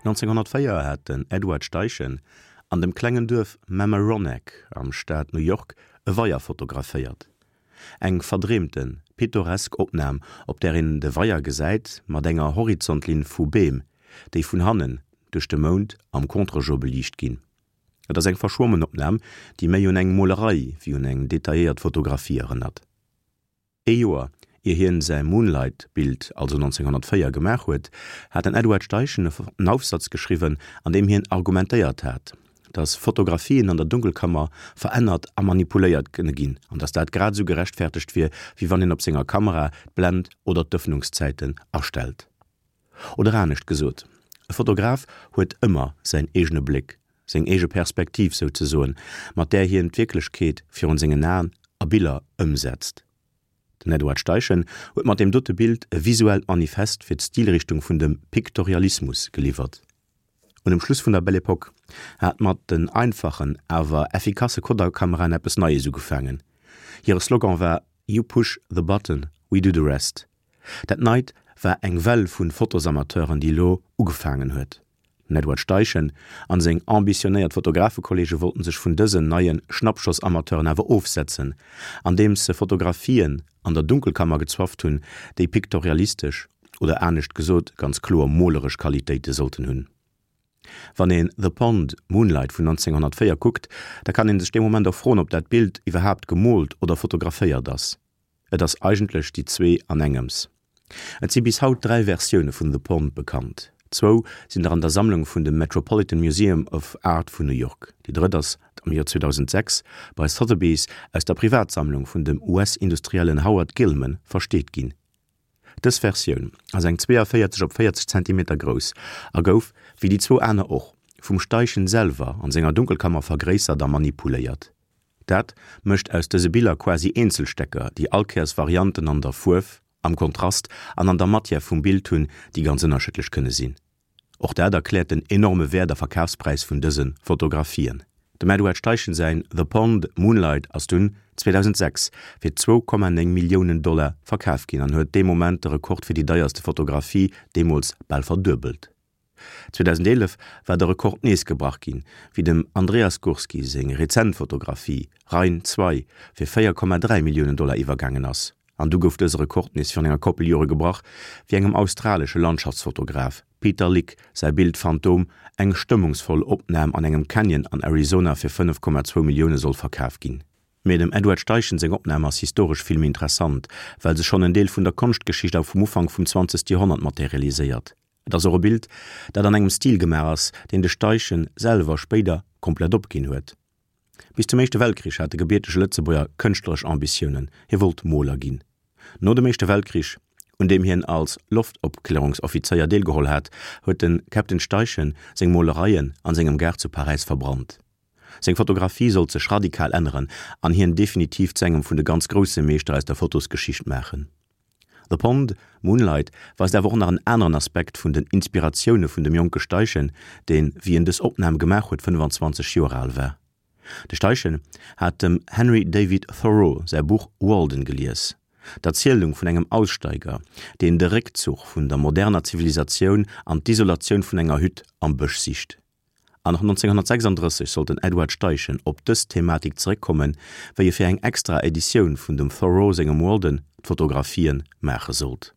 1904 hat den Edward Steichen an dem klengen Duerf Mamaroneck am Staat New York e Weier fotograféiert. Eng verdreemten, pittoresk Opnam, op där een de Weier gesäit mat enger Horizontlinn vu Beem, déi vun hannen duerch de Mound am Contre-jour beliicht ginn. Et ass eng verschwommen Opnam, déi méi un eng Molerei wéi un eng detailléiert Fotografie erënnert. Ee Joer ier hien säi Moonlight-Bild, also 1904, gemaach huet, hat den Edward Steichen en Aufsatz geschriwwen, an deem hien argumentéiert hat, datt Fotografien an der Dunkelkammer verännert a manipuléiert kënne ginn an datt dat grad esou gerechtfertegt wier, wéi wann een op senger Kamera d'Blend oder d'Ëffnungszäiten astellt. Oder anescht gesot, e Fotograf huet ëmmer säin eegene Bléck, seng eege Perspektiv souzesoen, mat där hien d'Wierklechkeet virun sengen Aen a Biller ëmsetzt. Den Edward Steichen huet mat deem dote Bild e visuellt Manifest fir d'Stilrichtung vun dem Piktorialismus geliwwert. Un dem Schluss vun der Belle Epoque hat mat den einfachen, awer effikasse Kodak-Kameraen eppes Neies ugefaangen. Hire Slogan war You push the button, we do the rest. Dat Neit war eng Well vun Fotosamateuren, déi elo ugefaangen huet. Den Edward Steichen an seng ambitionéiert Fotografekollege wollten sech vun dësen neie Schnappschossamateuren awer ofsetzen, andeems se Fotografien an der Dunkelkammer gezwafft hunn, déi piktorialistesch oder anescht gesot ganz kloer moleresch Qualitéite sollten hunn. Wann een The Pond, Moonlight vun 1904 kuckt, da kann een sech dee Moment och froen, ob dat Bild iwwerhaapt gemoolt oder fotograféiert ass. Et ass eigentlech déi zwee an engems. Et si bis haut 3 Versioune vun The Pond bekannt. Zwou sinn der an der Sammlung vun dem Metropolitan Museum of Art vun New York. Déi drëtt ass am Joer 2006 bei Sotheby's aus der Privatsammlung vun dem US-Industriellen Howard Gilman versteet ginn. Dës Versioun ass eng 42 op 40 Zentimeter grouss a gouf, wéi déi zwou aner och, vum Steichen selwer an senger Dunkelkammer vergréissert a manipuléiert. Dat mécht aus dëse Biller quasi Eenzelstecker, déi allkéiers Varianten an der Fuerf, am Kontrast an an der Matière vum Bild hunn, déi ganz ënnerschiddlech kënne sinn. Och dat erkläert den enorme Wäert a Verkafspräis vun dëse Fotografien. Dem Edward Steichen säin The Pond, Moonlight ass dunn 2006 fir 2,9 Milliounen Dollar verkaf ginn an huet dee Moment de Rekord fir déi deierste Fotografie deemools bal verduebelt. 2011 war de Rekord nees gebrach ginn, wéi dem Andreas Gursky seng rezent Fotografie Rhein 2 fir 4,3 Milliounen Dollar iwwergaangen ass. An du gouf dëse Rekord nees virun enger Koppel Jore gebrach, wéi engem australesche Landschaftsfotograf, Peter Lik, säi Bild Phantom, eng stëmmungsvoll Opnam an engem Canyon an Arizona fir 5,2 Millioune soll verkaf ginn. Mee dem Edward Steichen seng Opnam ass historesch vill méi interessant, well se schonn en Deel vun der Konschtgeschicht a vum Ufank vum 20. Joerhonnert materialiséiert. Et ass och e Bild, dat an engem Stil gemaach ass, deen de Steichen selwer spéider komplett opginn huet. Bis zum Éischte Weltkrich hat de gebiertege Lëtzebuerger kënschtleresch Ambitiounen, hie wollt Moler ginn. No dem Éischte Weltkrich, un deem hien als Loftopklärungsoffizéier deelgeholl hat, huet de Captain Steichen seng Molereien an sengem Gaart zu Paräis verbrannt. Seng Fotografie sollt sech radikal änneren an hien definitiv zu engem vun de ganz grousse Meeschter aus der Fotosgeschicht maachen. The Pond, Moonlight weist awer och nach en aneren Aspekt vun den Inspiratioune vun dem jonke Steichen, deen, wéi en dës Opnam gemaach huet, 25 Joer al war. De Steichen hat dem Henry David Thoreau säi Buch Walden gelies, d'Erzielung vun engem Aussteiger, deen de Réckzuch vun der moderner Zivilisatioun an d'Isolatioun vun enger Hütt am Bësch sicht. An och 1936 sollt den Edward Steichen op dës Thematik zeréckkommen, wéi e fir eng extra Editioun vun dem Thoreau sengem Walden d'Fotografien maache sollt.